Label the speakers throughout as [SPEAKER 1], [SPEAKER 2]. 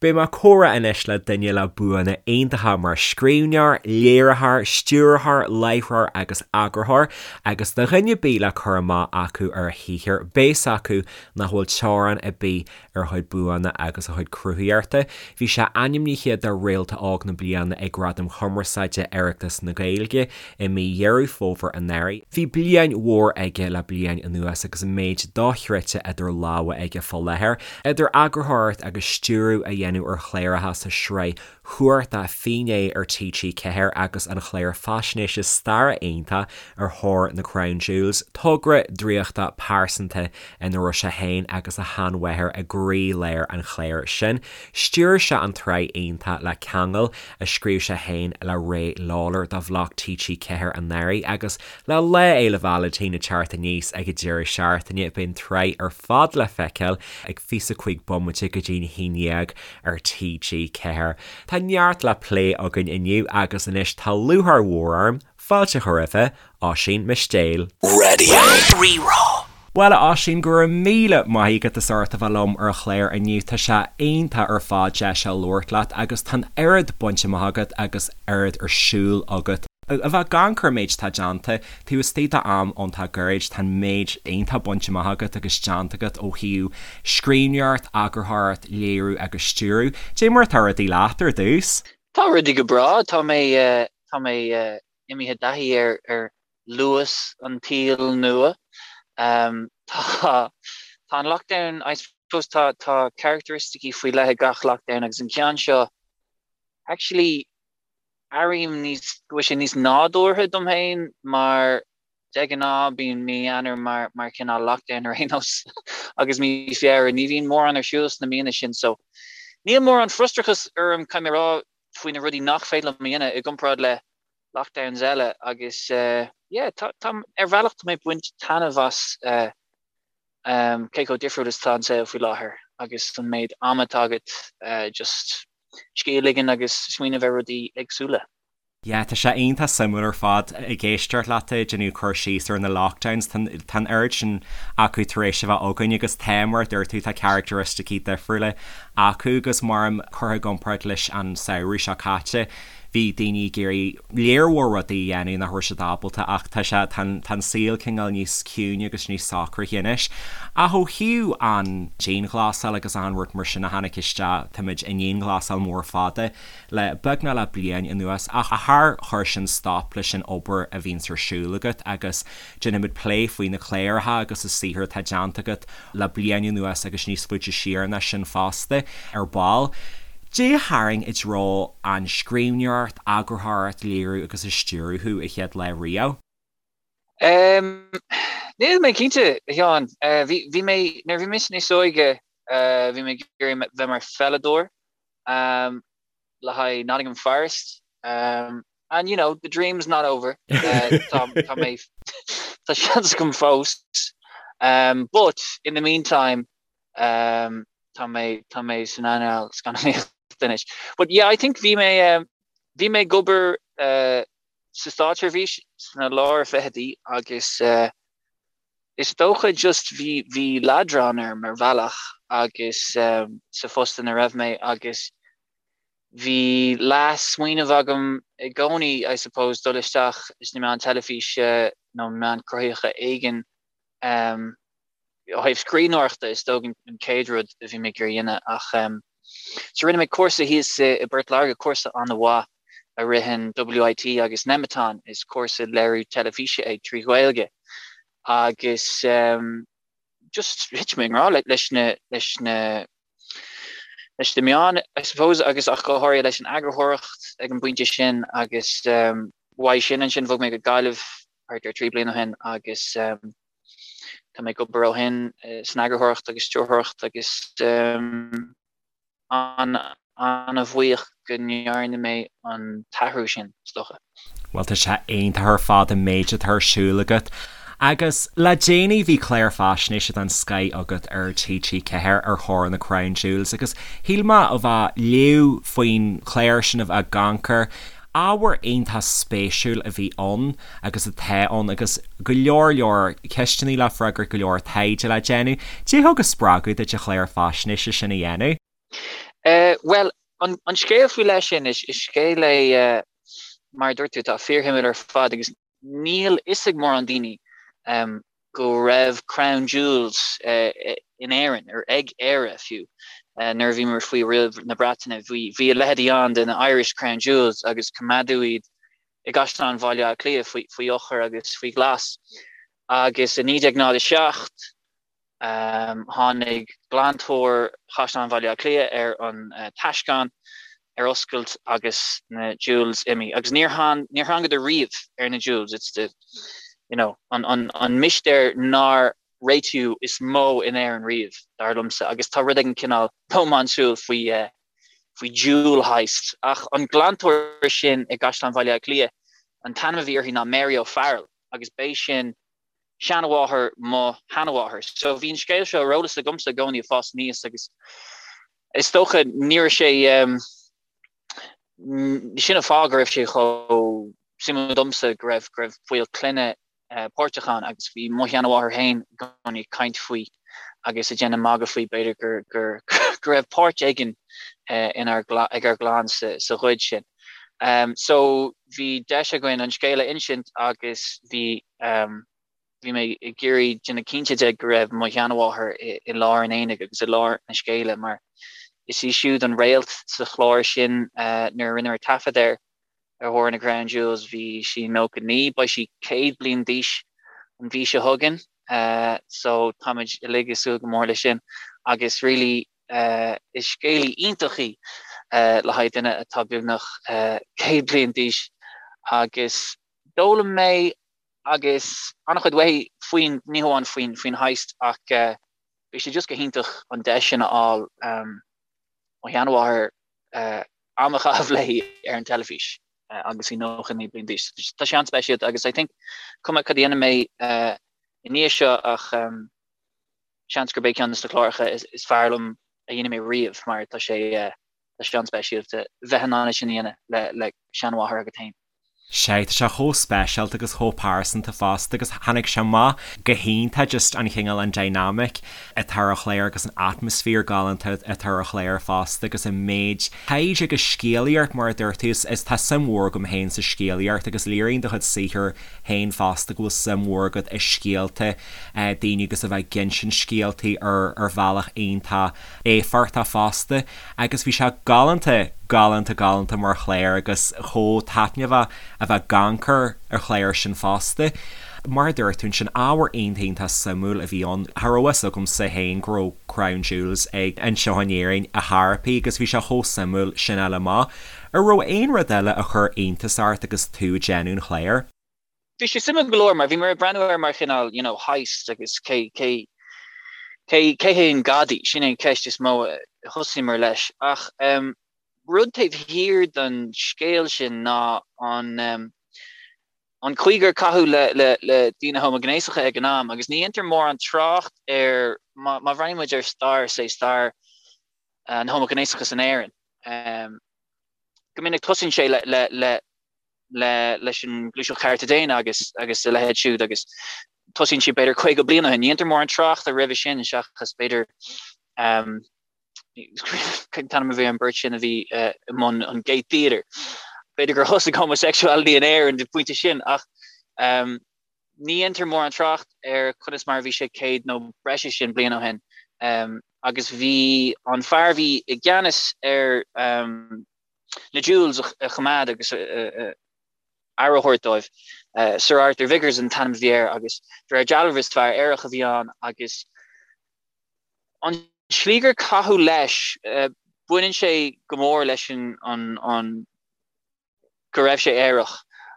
[SPEAKER 1] Beidh mé ag comhrá anois le duine le buanna iontacha mar scríbhneoir, léiritheoir, stiúrthóir, láithreoir agus eagarthóir, agus do dhuine ar bith le cur amach acu ar a shaothar, beidh fhios acu nach bhfuil teorainn ar bith ar a chuid buanna agus a chuid cruthaíochta. Bhí sé ainmnithe do Réalta Óg na Bliana ag Gradaim Chumarsáide Oireachtas na Gaeilge i mí Dheireadh Fómhair anuraidh. Bhí bliain mhór aige le bliain anuas agus an méid dochreidte idir lámha aige fá láthair, idir eagarthóireacht agus stiúradh a dhéanamh ar chláracha sa sraith chumhachtach Finné ar TG4 agus an chlár faisnéise staire iontach Ar Thóir na Crown Jewels, togra draíochta pearsanta ina raibh sé féin agus a sheanmháthair i gcroí-lár an chláir sin. Stiúir sé an tsraith iontach Le Ceangal, a scríobh sé féin le Ray Lawlor do Bhloc TG4 anuraidh agus le Lá Fhéile Vailintín ag teacht aníos ag an deireadh seachtaine, beidh an tsraith ar fad le feiceáil ag 25 bomaite go dtí'n 11 ar TG4. Tá neart le plé againn inniu agus anois tá lúcháir mhór orm fáilte a chur roimhe, Oisín Mistéil.
[SPEAKER 2] Radio Rí-Rá.
[SPEAKER 1] Bhuel, a Oisín, go raibh míle maith agat as ucht a bheith liom ar an chlár inniu. Tá sé iontach ar fad deis a labhairt leat agus tá an oiread bainte amach agat agus oiread ar siúl agat. A bheith ag amharc ar an méid atá déanta, taobh istigh d'am iontach gairid, tá an méid iontach bainte amach agat agus déanta agat ó thaobh scríbhneoireacht, eagarthóireacht, léiriú agus stiúradh. Dé mar atá rudaí leat ar dtús?
[SPEAKER 3] Tá rudaí go breá. Tá mé, tá mé imithe i dtaithí ar, ar luas an tsaoil nua. Tá, tá an lockdown, I suppose tá, tá characteristicí faoi leith ag gach lockdown agus an ceann seo, actually airím níos, go bhfuil sé níos nádúrtha dom féin mar de ghnáth bíonn mí Eanáir mar, mar chineál lockdown ar aon nós agus mí Feabhra, ní bhíonn mórán ar siúl sna míonna sin so níl mórán frustrachas orm, caithfidh mé a rá, faoi na rudaí nach féidir liom a dhéanamh i gcomparáid le lockdowns eile agus yeah tá tá ar bhealach tá mé ag baint taitneamh as cé chomh difriúil is atá an saol faoi láthair agus an méid ama atá agat just scíth a ligean agus smaoineamh ar rudaí éagsúla.
[SPEAKER 1] Yeah, tá sé iontach suimiúil ar fad ag éisteacht leat ag déanamh cur síos ar na lockdowns, tá tá an oiread sin acu tar éis a bheith againn agus tá, mar a dúirt tú, tá characteristicí difriúla acu agus mar curtha i gcomparáid leis an samhradh seo caite, Bhí daoine ag iarraidh léar mhór rudaí a dhéanamh nach raibh siad ábalta ach tá sé, tá an, tá an saol cineál níos ciúine agus níos socraithe anois. Ach ó thaobh an dianghlasáil agus achan rud mar sin a tháinig isteach, táimid i ndianghlasáil mór fada le beagnach le bliain anuas ach char chuir sin stop leis an obair a bhíonns ar siúl agat agus déanfaimid plé faoi na cláracha agus an saothar atá déanta agat le bliain anuas agus níos faide siar ná sin fosta, ar ball. Dé a tharraing i dtreo an scríbhneoireacht, eagarthóireacht, léiriú agus a stiúradh thú a chéad lá riamh?
[SPEAKER 3] Níl mé cinnte, a Sheáin. Bhí mé, nuair a bhí mise níos óige, bhí mé ag iarraidh bheith mar pheileadóir. Le haghaidh Nottingham Forest. And you know, the dream's not over. Tá tá mé tá seans agam fós. But in the meantime tá mé tá mé san earnáil scannánaíochta anois. But yeah, I think bhí mé bhí mé ag obair sa státseirbhís sna lár fichidí agus is dócha just bhí bhí leadrán orm ar bhealach agus sa phost ina raibh mé agus bhí leath-smaoineamh agam i gcónaí I suppose dul isteach sna meáin teilifíse nó meáin cruthaitheacha éigin. Ó thaobh scríbhneoireachta is dócha an chéad rud a bhí mé ag iarraidh a dhéanamh ach so rinne mé cúrsa thíos i bPort Láirge, cúrsa an-mhaith a ritheann WIT agus Nemeton, is cúrsa léiriú teilifíse é trí Ghaeilge agus just thit mé i ngrá leis na leis na leis na meáin I suppose agus ach go háirithe leis an eagarthóireacht ag an bpointe sin agus uaidh sin ansin bhog mé go Gaillimh thart ar 3 bliana ó shin agus Tá mé ag obair ó shin san eagarthóireacht agus stiúrthóireacht agus an-bhuíoch go ndearna mé an t-athrú sin, is dócha.
[SPEAKER 1] Bhuel, tá sé iontach ar fad an méid atá ar siúl agat. Agus le déanaí bhí clár faisnéise den scoith agat ar TG4 ar thóir na Crown Jewels agus shíl mé a bheith ag léamh faoin chlár sin a bheith ag amharc air. Ábhar iontach spéisiúil a bhí ann agus atá ann agus go leor leor ceisteanna le freagairt, go leor taighde le déanamh. Dé thug an spreagadh duit an clár faisnéise sin a dhéanamh?
[SPEAKER 3] Bhuel, an scéal faoi leith sin, is scéal é, mar a dúirt tú, atá fíorshuimiúil ar fad agus níl fhios ag mórán daoine go raibh Crown Jewels in Éirinn, ar ag Éire fiú, nuair a bhíomar faoi riail na Breataine. Bhí a leithéidí ann de na Irish Crown Jewels agus coimeádadh iad i gCaisleán Bhaile Átha Cliath faoi eochair agus faoi ghlas. Agus i 1907, Tháinig glantóir Chaisleán Bhaile Átha Cliath ar an taisceán ar oscailt agus na jewels imithe. Agus níor thángadar riamh ar na jewels. It's the, you know, an, an, an mistéir nár réitíodh is mó in Éirinn riamh, dar liomsa. Agus tá rud éigin cineál rómánsúil faoi, faoi jewel heist. Ach an glantóir sin i gCaisleán Bhaile Átha Cliath, an t-ainm a bhí uirthi ná Mary O'Farrell agus b'é sin seanmháthair mo sheanmháthar. So bhí an scéal seo ar eolas agamsa i gcónaí ag fás aníos agus is dócha ní raibh sé sin an fáth go raibh sé chomh suimiúil domsa go raibh go raibh baill clainne páirteach ann agus bhí mo sheanmháthair féin i gcónaí ag caint faoi agus ag déanamh magadh faoi b'fhéidir gur gur go raibh páirt éigin inár ag ár gclann sa sa ghoid sin. So bhí deis againn an scéal a insint agus bhí bhí mé ag iarraidh déanamh cinnte de go raibh mo sheanmháthair i lár an aonaigh agus i lár na scéala mar is í siúd an réalt sa chlár sin nuair a rinneamar taifead air ar thóir na Crown Jewels bhí sí 99, beidh sí 100 bliain d'aois an mhí seo chugainn so táimid uilig ag súil go mór leis sin agus really is scéalaí iontach í le haghaidh duine atá beagnach 100 bliain d'aois agus D'fhoghlaim mé agus an-chuid uaithi faoin, ní hamháin faoin, faoin heist ach bhí sé just go hiontach an deis sin a fháil mo sheanmháthair am a chaitheamh léi ar an teilifís agus í 99 bliain d'aois. Tá sé an-speisialta agus I think cuma cad a dhéanfaidh mé i ndiaidh seo ach seans gurb é ceann de na cláracha is fearr liom a dhéanfaidh mé riamh mar tá sé Tá sé an-speisialta bheith in ann é sin a dhéanamh le seanmháthair agat féin.
[SPEAKER 1] Sea, tá sé chomh speisialta agus chomh pearsanta fosta agus tháinig sé amach go hiontach just an chineál an dynamic atá ar an chlár agus an atmaisféar galánta atá ar an chlár fosta agus an méid taighde agus scéalaíocht mar a dúirt tú is tá suim mhór agam féin sa scéalaíocht agus léiríonn do chuid saothair féin fosta go bhfuil suim mhór agat i scéalta daoine agus a bheith ag insint scéaltaí ar ar bhealach iontach éifeachtach fosta agus bhí sé galánta, galánta, galánta mar chlár agus chomh taitneamhach a bheith ag amharc ar an chlár sin fosta. Mar a dúirt tú ansin, ábhar iontach iontach suimiúil a bhí ann. Cha raibh a fhios agamsa féin go raibh Crown Jewels ag anseo in Éirinn ar chor ar bith agus bhí sé chomh suimiúil sin a fháil amach. An raibh aon rud eile a chuir iontas ort agus tú ag déanamh an chláir?
[SPEAKER 3] Bhí sé suimiúil go leor mar bhí mé ag breathnú air mar chineál you know heist agus cé cé cé cé hé an gadaí, sin é an cheist is mó a thosaíomar leis. Ach um, rud taobh thiar den scéal sin ná an um, an chaoi gur caitheadh le, le, le daoine homaighnéasacha ag an am agus ní dhéantar mórán trácht ar má, má bhreathnaíonn muid ar stair, say stair an homaighnéasachas in Éirinn. Um, go minic tosaíonn sé le, le, le le leis an Gluaiseacht Chearta Daonna agus agus a leithéid siúd agus tosaíonn sé b'fhéidir 50 bliain ó shin. Ní dhéantar mórán tráchta roimhe sin seachas b'fhéidir um, cén t-ainm a bhí ar an bheirt sin a bhí uh, i mbun an Gate Theatre. B'fhéidir gur thosaigh homosexuality in Éirinn ag an bpointe sin ach um, ní dhéantar mórán trácht ar conas mar a bhí sé 100 nó breis is sin bliain ó shin. Um, agus bhí an fear a bhí i gceannas ar um, na jewels a choimeád agus aire a thabhairt dóibh. Sir Arthur Vicars an t-ainm a bhí air agus de réir dealraimh is fear aerach a bhí ann agus an tslí gur caitheadh leis, baineann sé go mór leis an an go raibh sé aerach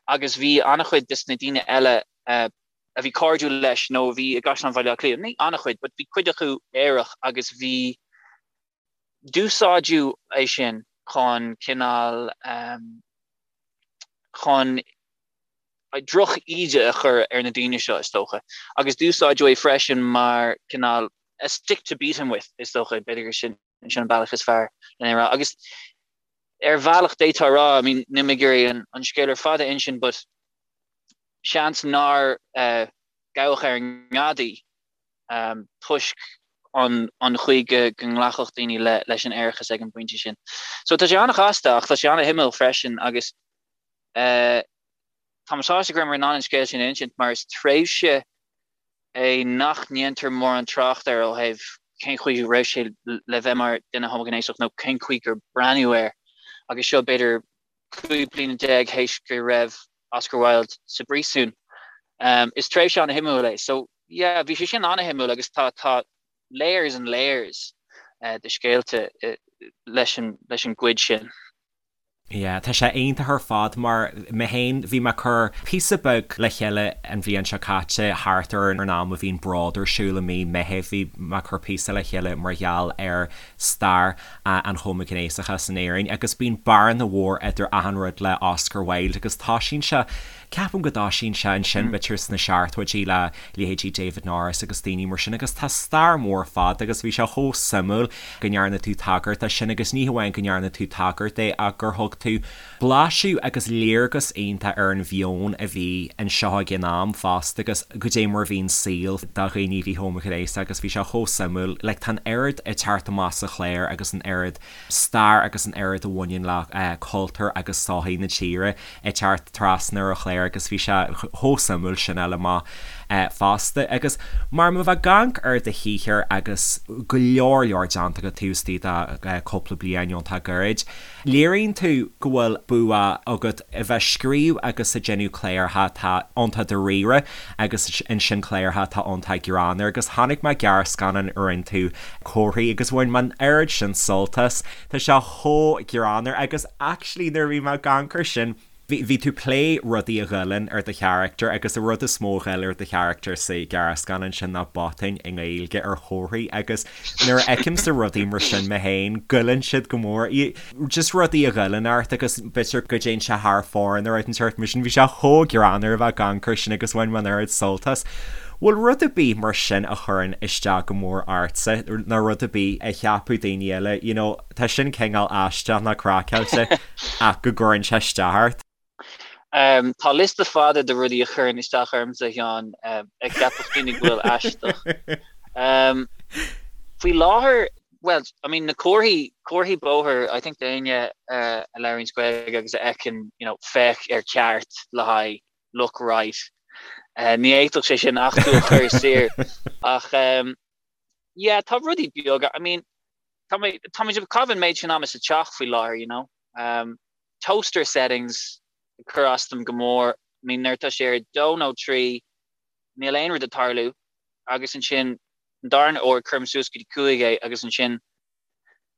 [SPEAKER 3] agus bhí an-chuid des na daoine eile a bhí cairdiúil leis nó a bhí i gCaisleán Bhaile Átha Cliath, ní an-chuid but bhí cuid acu aerach agus bhí D'úsáideadh é sin chun cineál, chun droch-íde a chur ar na daoine seo, is dócha. Agus d'úsáideadh é freisin mar cineál a stick to beat him with, is dócha, b'fhéidir gur sin an bealach is fearr lena rá. Agus ar bhealach d'fhéadfá a rá, I mean, níl mé ag iarraidh an scéal ar fad a insint, but seans nár gabhadh ar an ngadaí toisc. an an chaoi go go nglacfadh daoine le leis an aerachas ag an bpointe sin. So tá sé an-chasta ach tá sé an-shuimiúil freisin agus eh, tá mé sásta go rabhamar in ann an scéal sin a insint mar is tréimhse é nach ndéantar mórán trácht air ó thaobh cén chaoi a raibh sé le bheith mar duine homaighnéasach nó cén chaoi gur breathnaíodh air agus seo b'fhéidir 15 bliana théis go raibh Oscar Wilde sa bpríosún. Is tréimhse an-shuimiúil é. So, yeah, bhí sé sin an-shuimiúil agus tá tá layers and layers de scéalta leis an leis an gcuid sin.
[SPEAKER 1] Yeah, tá sé iontach ar fad mar mé féin bhí mé ag cur píosa beag le chéile an bhliain seo caite thart ar an am a bhíonn Bród ar siúl i mí Meitheamh bhí mé ag cur píosa le chéile mar gheall ar stair an homaighnéasachais in Éirinn agus bíonn bearna mhór idir achan rud le Oscar Wilde agus toisíonn sé, ceapaim go dtoisíonn sé ansin b'fhéidir sna seachtóidí le leithéidí David Norris agus daoine mar sin agus tá stair mhór fada agus bhí sé chomh suimiúil go ndearna tú tagairt dó sin agus ní hamháin go ndearna tú tagairt dó ach gur thug tú blaiseadh agus léargas iontach ar an mheon a bhí anseo ag an am fosta agus goidé mar a bhí an saol do dhaoine a bhí homaighnéasach agus bhí sé chomh suimiúil like tá an oiread ag teacht amach sa chlár agus an oiread stair agus an oiread a bhaineann le cultúr agus sochaí na tíre ag teacht trasna ar an chlár agus bhí sé chomh suimiúil sin a fháil amach fosta agus mar má bheith ag amharc ar do shaothar agus go leor leor déanta agat taobh istigh de cúpla bliain iontach gairid. Léiríonn tú go bhfuil bua agat a bheith ag scríobh agus ag déanamh cláracha atá iontach dáiríre agus ansin cláracha atá iontach greannmhar agus chonaic mé gearrscannán a rinne tú Comharthaí agus bhain mé an oiread sin sult as. Tá sé chomh greannmhar agus actually nuair a bhí mé ag amharc air sin, Bhí tú ag plé rudaí a ghoilleann ar do charachtar agus an rud is mó a ghoill ar do charachtar sa ghearrscannán sin ná botúin i nGaeilge ar chomharthaí agus nuair a fheicimse rudaí mar sin mé féin, goilleann siad go mór. Just rudaí a ghoilleann ort agus b'fhéidir go dtéann sé thar fóir nó rud inteacht mar sin. Bhí sé chomh greannmhar a bheith ag amharc air sin agus bhain mé an oiread sult as. Bhfuil rud ar bith mar sin a chuireann isteach go mór ortsa nó rud ar bith a cheapfadh daoine eile, you know, Tá sin cineál aisteach nó craiceáilte ach go gcuireann sé isteach ort.
[SPEAKER 3] Tá liosta fada de rudaí a chuireann isteach ormsa, a Sheáin, a cheapfadh daoine go bhfuil aisteach. Faoi láthair, bhuel, I mean, na comharthaí, comharthaí bóthair, I think d'éinne a labhraíonns Gaeilge agus a fheiceann, you know, féach ar ceart le haghaidh look right. Ní fhéadfadh sé sin ach tú a chur siar. Ach, yeah, tá rudaí beaga, I mean, Tá mé, tá muid ag caitheamh an méid sin ama sa teach faoi láthair, you know. Um, toaster settings ag cur as dom go mór. I mean, nuair atá sé ar dó nó trí, níl aon rud ag tarlú, agus ansin an darna uair cuirim suas go dtí cúig é agus ansin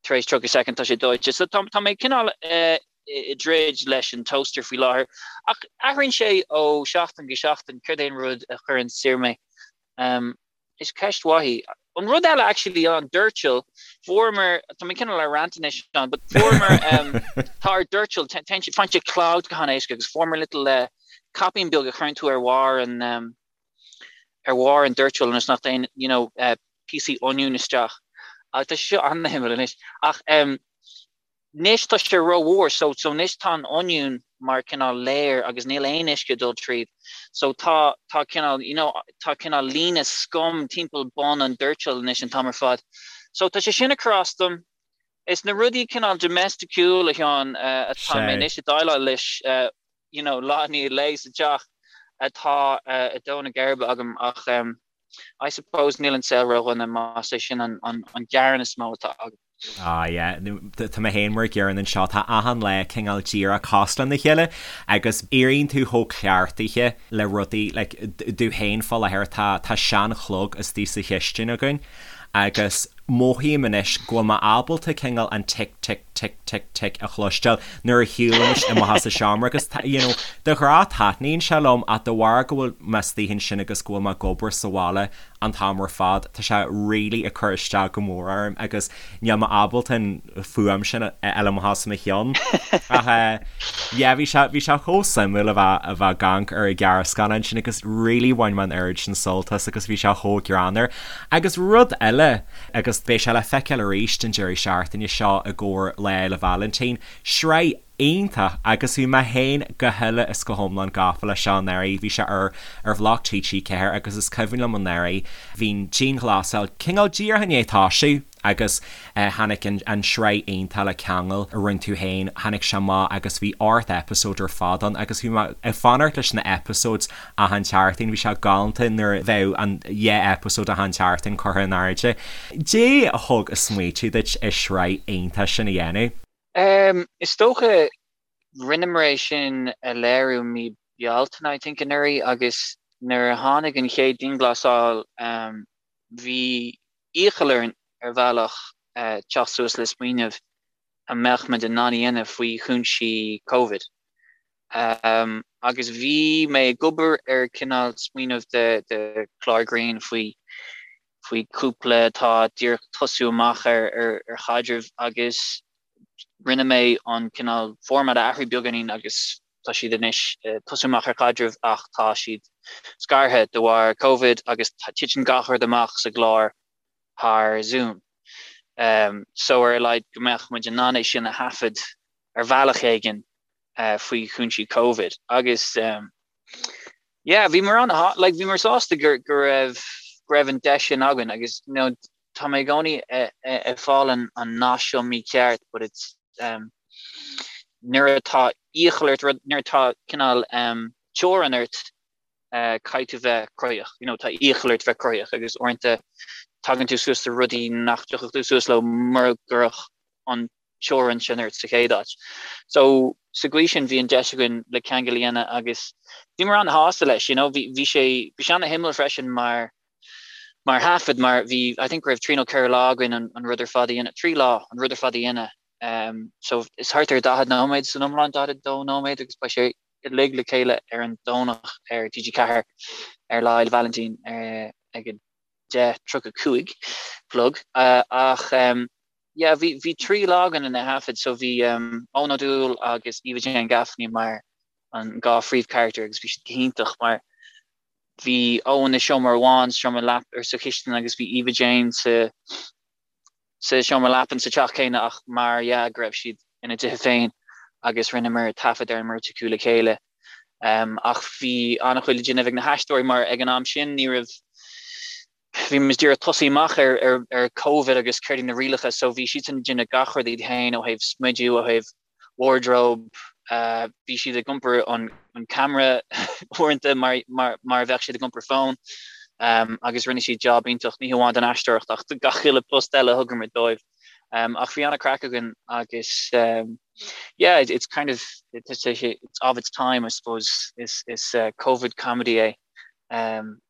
[SPEAKER 3] tar éis 30 soicind tá sé dóite. So tá, tá mé cineál uh, i dtroid leis an toaster faoi láthair. Ach athraíonn sé ó seachtain go seachtain céard é an rud a chuireann siar mé. Um, Is ceist mhaith í. An rud eile actually an doirteal, fuaireamar, tá mé cineál ar rant anois Seán, but fuaireamar, um, tá ár doirteal, téann sé, faigheann sé clogged go han-éasca agus fuaireamar little uh, caipín beag a chuireann tú ar bharr an, um, ar bharr an doirteal ionas nach dtéann, you know, uh, píosaí oinniúin isteach. Agus tá sé seo an-shuimiúil anois. Ach um, Anois tá sé rómhór so so anois tá an oinniún mar cineál layer agus níl aon uisce ag dul tríd so tá tá cineál you know tá cineál líne scum timpeall bun an doirteal anois an t-am ar fad. So tá sé sin ag cur as dom. Is na rudaí cineál domesticiúil a Sheáin atá mé anois ag déileáil leis you know lá i ndiaidh lae sa teach atá ag dó na geirbe agam ach I suppose níl an saol ródhona más é sin an an gearán is mó atá agam.
[SPEAKER 1] Ah yeah, tá mé féin mar an gcéanna anseo, tá achan lá cineál díreach cosúil lena chéile agus éiríonn tú chomh cleachtaithe le rudaí like domh féin fá láthair tá tá seanchlog istigh sa chistin againn agus mothaím anois go bhfuil mé ábalta cineál an tic tic tic tic tic a chloisteáil nuair a shiúlaim amach as an seomra agus tá you know de ghnáth taitníonn sé liom ach de bharr go bhfuil mé istigh ansin agus go bhfuil mé ag obair sa bhaile an t-am ar fad. Tá sé really ag cur isteach go mór orm agus níl mé ábalta an fuaim sin a fháil amach as mo cheann. Ach yeah, bhí sé, bhí sé chomh suimiúil a bheith, a bheith ag amharc ar an ghearrscannán sin agus really bhain mé an oiread sin sult as agus bhí sé chomh greannmhar. Agus rud eile, agus beidh sé le feiceáil arís an deireadh seachtaine seo i gcomhair. gcomhair Lá Fhéile Vailintín. Sraith iontach agus bhí mé féin go huile is go hiomlán gafa leis seo anuraidh. Bhí sé ar ar bhloc TG4 agus is cuimhin liom anuraidh bhí an dianghlasáil cineál díreach i ndiaidh toisiú agus tháinig an an sraith iontach le ceangal a rinne tú féin, tháinig sé amach agus bhí 8 episode ar fad ann agus bhí mé ag fanacht leis na episodes achan tseachtain, bhí sé galánta nuair a bheadh an dhá episode achan tseachtain curtha in airde. Caidé a thug an smaoitiú duit an sraith iontach sin a dhéanamh?
[SPEAKER 3] Is dócha, rinneamar é sin a léiriú mí Bealtaine, I think, anuraidh agus nuair a tháinig an chéad dianghlasáil, bhí iachall orainn ar bhealach teacht suas le smaoineamh a mbeadh muid in ann a dhéanamh faoi chúinsí Covid. Agus bhí mé ag obair ar cineál smaoineamh de chlár grinn faoi faoi chúpla atá díreach tosú amach ar ar chaidreamh agus rinne mé an cineál format a athrú beagáinín agus tá siad anois tosú amach ar chaidreamh ach tá siad scartha de bharr Covid agus titeann gach rud amach sa gclár thar Zoom. So ar a laghad go mbeadh muid in ann é sin a thaifead ar bhealach éigin faoi chúinsí Covid agus yeah bhíomar an like bhíomar sásta go go raibh go raibh an deis sin againn agus you know tá mé i gcónaí ag fáil an an nath seo mícheart but it's um, nuair atá iachall ort rud nuair atá cineál um, teorainn ort uh, caithfidh tú bheith cruthaitheach you know tá iachall ort bheith cruthaitheach agus uaireanta tagann tú suas le rudaí nach dtiocfadh tú suas leo mura gcuirfeadh an teorainn sin ort sa chéad áit. So sa gcaoi sin bhí an deis againn le ceangal a dhéanamh agus bhíomar an-shásta leis, you know, bhí, bhí sé, bhí sé an-shuimiúil freisin mar, mar thaifead mar bhí, I think go raibh trí nó ceithre lá againn an, an rud ar fad a dhéanamh, trí lá an rud ar fad a dhéanamh. Um, so is thart ar 40 nóiméad san iomlán, 42 nóiméad agus beidh sé uilig le chéile ar an Domhnach ar TG4 ar Lá Fhéile Vailintín uh, ag 10:35 chlog uh, ach um, Yeah, bhí, bhí trí lá againn lena thaifead, so bhí um, Eoin Ó Dúill agus Eva Jane Gaffney mar an dhá phríomhcharachtar agus bhí siad go hiontach mar bhí Eoin i seomra amháin, seomra leap ar sa chistin agus bhí Eva Jane sa sa seomra leapan sa teach céanna ach mar dhea go raibh siad ina dtithe féin agus rinneamar taifead ar an mbeirt acu le chéile. Um, ach bhí an-chuid le déanamh ag na haisteoirí mar ag an am sin ní raibh Bhí muid díreach tosaí amach ar ar Covid agus céard iad na rialacha so bhí siadsan ag déanamh gach rud iad féin ó thaobh smidiú, ó thaobh wardrobe, bhí siad ag iompar an an camera uaireanta mar mar mar a bheadh siad ag iompar fón agus rinne siad job iontach, ní hamháin don aisteoireacht ach do gach uile post eile a thugamar dóibh. Ach bhí an-craic againn agus yeah it's kind of it's it's of its time I suppose is is Covid comedy é.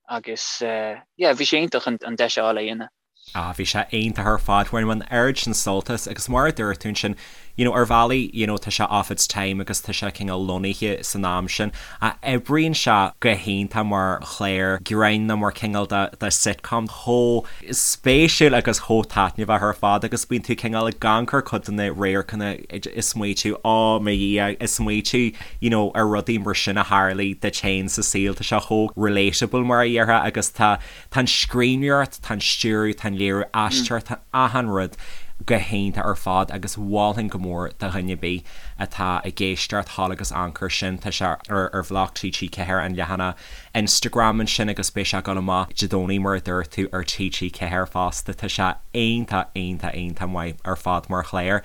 [SPEAKER 3] Agus yeah, bhí sé iontach an deis a fháil é a dhéanamh.
[SPEAKER 1] Ah, bhí sé iontach ar fad, bhain mé an oiread sin sult as agus mar a dúirt tú ansin, you know, ar bhealaí, you know, tá sé of its time agus tá sé cineál lonnaithe san am sin, ach oibríonn sé go hiontach mar chlár grinn nó mar cineál de, de sitcom chomh spéisiúil agus chomh taitneamhach ar fad agus bíonn tú cineál ag amharc ar cuid de na radharcanna ag smaoitiú, oh mo Dhia, ag smaoitiú you know, ar rudaí mar sin a tharlaigh duit féin sa saol, tá sé chomh relatable mar a dhéarfá agus tá, tá an scríbhneoireacht, tá an stiúradh, tá an léiriú, aisteoireacht, tá achan rud go hiontach ar fad agus mholfainn go mór do dhuine ar bith atá ag éisteacht thall agus amharc air sin, tá sé ar ar bhloc TG4 an leathanach Instagram ansin agus beidh sé ag dul amach Dé Domhnaigh mar a dúirt tú ar TG4 fosta, tá sé iontach, iontach, iontach maith ar fad mar chlár.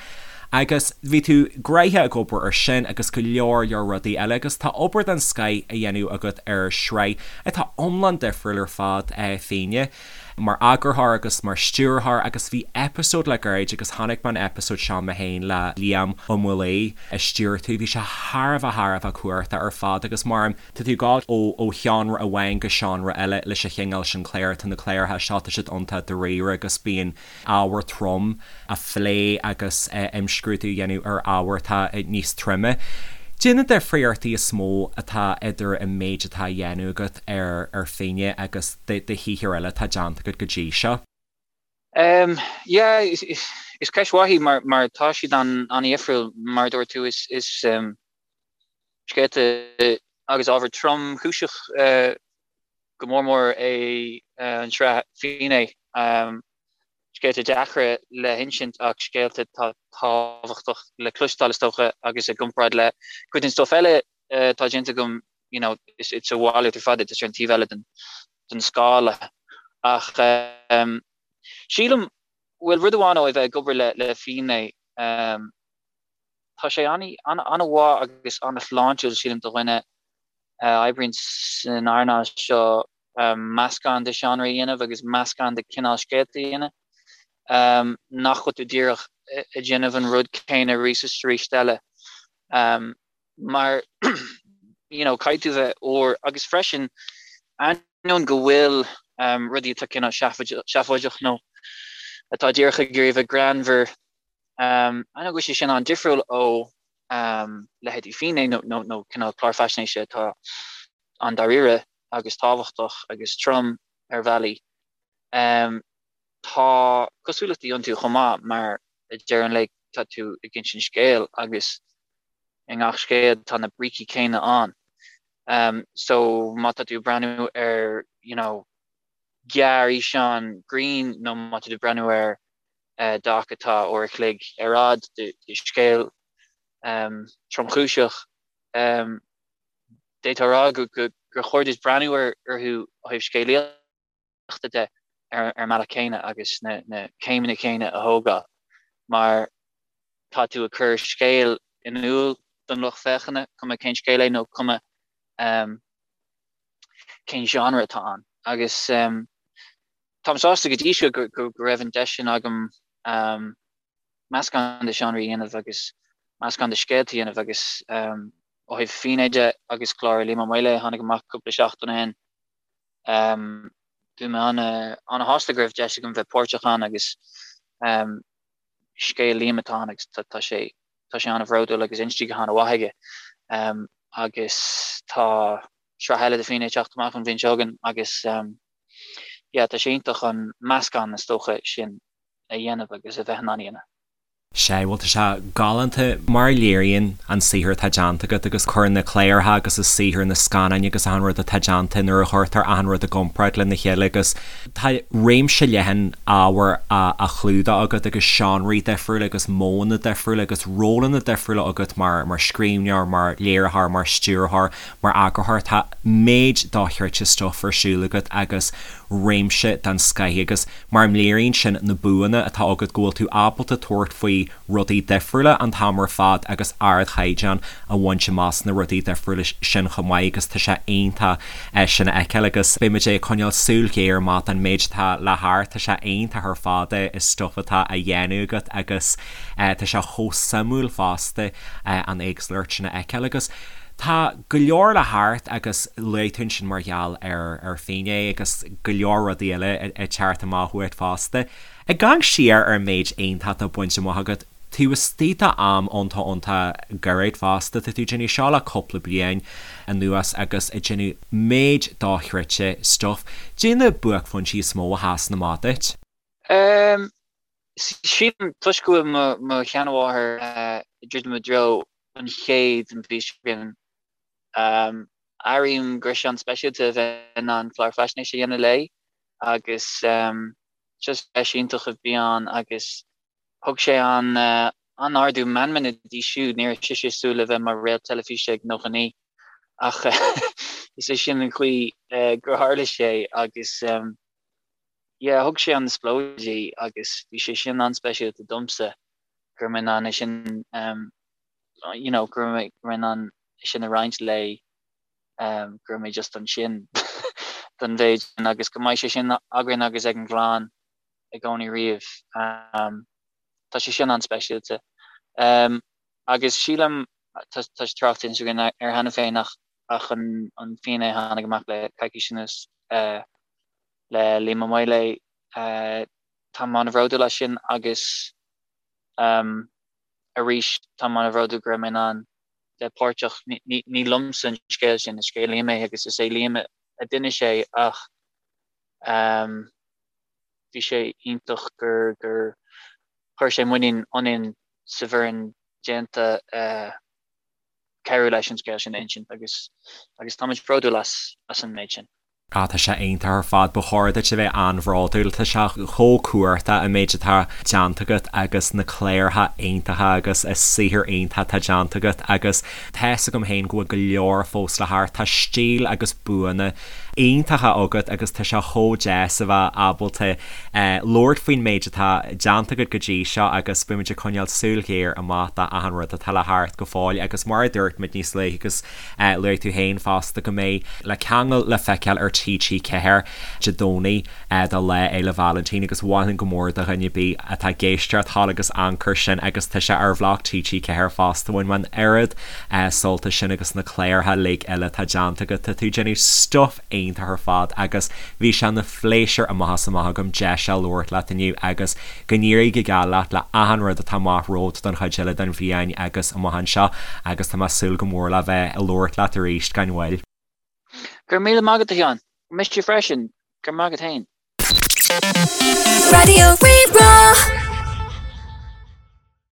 [SPEAKER 1] Agus bhí tú gnoitheach ag obair ar sin agus go leor leor rudaí eile agus tá obair den scoith á dhéanamh agat ar shraith atá iomlán difriúil ar fad, Fíne, mar eagarthóir agus mar stiúrthóir agus bhí eipeasóid le gairid agus chonaic mé an eipeasóid seo mé féin le Liam Ó Maolaodha a stiúir tú, bhí sé thar a bheith thar a bheith cumhachtach ar fad agus mar tá tú ag gabháil ó ó sheánra amháin go seánra eile leis an chineál sin cláir, tá na cláracha seo tá siad iontach dáiríre agus bíonn ábhar trom á phlé agus imscrúdú a dhéanamh ar ábhar atá níos troime. Cad é na difríochtaí is mó atá idir an méid atá á dhéanamh agat ar ar Fíne agus do shaothar eile atá déanta agat go dtí seo?
[SPEAKER 3] Yeah, is ceist mhaith í mar mar tá siad an-dhifriúil mar a dúirt tú is is scéalta agus ábhar tromchúiseach go mór mór é an tsraith Fíné. Scéalta deacra le hinsint ach scéalta atá tábhachtach le cloisteáil is dócha agus i gcomparáid le cuid den stuif eile atá déanta agam you know it's a mhalairt ar fad é, tá sé ar an taobh eile den den scála. Ach sílim, bhuel rud amháin ó a bheith ag obair le le Finné, tá sé an-mhaith agus an-shláintiúil sílim do dhuine a oibríonn san earnáil seo meascán de seánraí a dhéanamh agus meascán de cineál scéalta a dhéanamh, nach bhfuil tú díreach ag déanamh an rud céanna arís is arís eile. Mar you know caithfidh tú bheith úr agus freisin ainneoin go bhfuil rudaí atá cineál seafóideach nó atá díreach ag iarraidh bheith greannmhar, ainneoin go bhfuil sé sin an-difriúil ó leithéidí Finné nó cineál clár faisnéise atá an-dáiríre agus tábhachtach agus trom ar bhealaí. Tá cosúlachtaí iontu chomh maith mar ag deireadh an lae tá tú ag insint scéil agus i ngach scéal tá na brící céanna ann. So má tá tú ag breathnú ar you know gearrfhíseán grinn nó má tá tú ag breathnú ar doc atá uair a chloig ar fhad de scéal tromchúiseach, d'fhéadfá a rá gur chóir duit breathnú orthu ó thaobh scéalaíochta de ar an mbealach céanna agus na céimeanna céanna a thógáil mar tá tú ag cur scéal in iúl don lucht féachana, cuma cén scéal é nó cuma cén genre atá ann. Agus táim sásta go dtí seo go raibh an deis sin agam meascán de seánraí a dhéanamh agus meascán de scéalta a dhéanamh agus ó thaobh Finné de agus clár Liam Ó Maolaodha a tháinig amach cúpla seachtain ó shin, bhí mé ana-shásta go raibh deis agam bheith páirteach ann agus scéal Liam atá ann agus tá sé tá sé an-bhródúil agus inste go han-mhaith aige agus tá sraith eile de Finné ag teacht amach an bhliain seo chugainn agus yeah tá sé iontach an meascán is dócha sin a dhéanamh agus a bheith in ann a dhéanamh.
[SPEAKER 1] Sea, bhuel tá sé galánta mar a léiríonn an saothar atá déanta agat agus cuireann na cláracha agus an saothar, na scannáin agus achan rud atá déanta nuair a chuirtear achan rud i gcomparáid lena chéile agus tá réimse leathan ábhar á chlúdach agat agus seánraí difriúla agus modhanna difriúla agus rólanna difriúla agat mar mar scríbhneoir, mar léiritheoir, mar stiúrthóir, mar eagarthóir. Tá méid dochreidte stuif ar siúl agat agus réimse den scoith agus Mar léiríonn sin na buanna atá agat go bhfuil tú ábalta tabhairt faoi rudaí difriúla an t-am ar fad agus ardchaighdeán a bhaint amach sna rudaí difriúla sin chomh maith agus tá sé iontach sin a fheiceáil agus beidh muid ag coinneáil súil ghéar amach don méid atá le theacht, tá sé iontach ar fad an stuif atá á dhéanamh agat agus tá sé chomh suimiúil fosta an éagsúlacht sin a fheiceáil agus tá go leor le theacht agus luaigh tú ansin mar gheall ar ar Finné agus go leor rudaí eile ag teacht amach uait fosta. Ag amharc siar ar an méid iontach atá bainte amach agat, taobh istigh d'am iontach iontach gairid fosta, tá tú ag déanamh seo le cúpla bliain anuas agus ag déanamh méid dochreidte stuif. Caidé na buaicphointí is mó a sheasann amach duit?
[SPEAKER 3] Sílim, toisc go bhfuil mo sheanmháthair ag druidim i dtreo an chéid an mhí seo chugainn, airím go raibh sé an-speisialta a bheith in ann clár faisnéise a dhéanamh léi agus just deis iontach a bhí ann agus thug sé an-ardú meanmna di siúd, ní raibh sise ag súil le bheith mar réalt teilifíse ag 99 ach is é sin an chaoi gur tharla sé agus yeah thug sé an spleodar di agus bhí sé sin an-speisialta domsa go raibh mé in ann é sin um you know go raibh mé go raibh mé in ann é sin a roinnt léi um go raibh mé just ansin don mhéid sin agus go mbeidh sé sin againn agus ag an gclann i gcónaí riamh um tá sé sin an-speisialta um agus sílim tá tá sé tráchta againn air cheana féin ach ach an an Finné a tháinig amach le coicís anuas uh le Liam Ó Maolaodha. Táim an-bhródúil as sin agus arís táim an-bhródúil go raibh mé in ann bheith páirteach. Ní liomsa an scéal sin, is scéal Liam é agus is é Liam a d'inis é ach bhí sé iontach gur gur chuir sé muinín ionainn sa bhfoireann déanta cabhrú leis an scéal sin a insint agus agus táimid bródúil as as an méid sin.
[SPEAKER 1] Ah tá sé iontach ar fad, ba chóir duit a bheith an-bhródúil, tá sé chomh cumhachtach an méid atá déanta agat agus na cláracha iontacha agus an saothar iontach atá déanta agat agus tá's agam féin go bhfuil go leor fós le theacht, tá stíl agus buanna iontacha agat agus tá sé chomh deas a bheith ábalta labhairt faoin méid atá déanta agat go dtí seo agus beimid ag coinneáil súil ghéar amach d'achan rud atá le theacht go fóill agus mar a dúirt muid níos luaithe agus Luaigh tú féin fosta go mbeidh Le Ceangal le feiceáil ar TG4 Dé Domhnaigh do Lá Fhéile Vailintín agus mholfainn go mór do dhuine ar bith atá ag éisteacht a ghabháil agus amharc air sin agus tá sé ar bhloc TG4 fosta. Bhain mé an oiread sult as sin agus na cláracha uilig eile atá déanta agat. Tá tú ag déanamh stuif iontach ar fad agus bhí sé ina phléisiúr amach is amach agam deis a labhairt leat inniu agus go n-éirí go geal leat le achan rud atá amach romhat don chuid eile den bhliain agus amach anseo agus tá mé ag súil go mór le bheith ag labhairt leat arís gan mhoill.
[SPEAKER 3] Go raibh míle maith agat a Sheáin. Mise freisin. Go raibh maith agat féin.
[SPEAKER 2] Raidió Rí-Rá.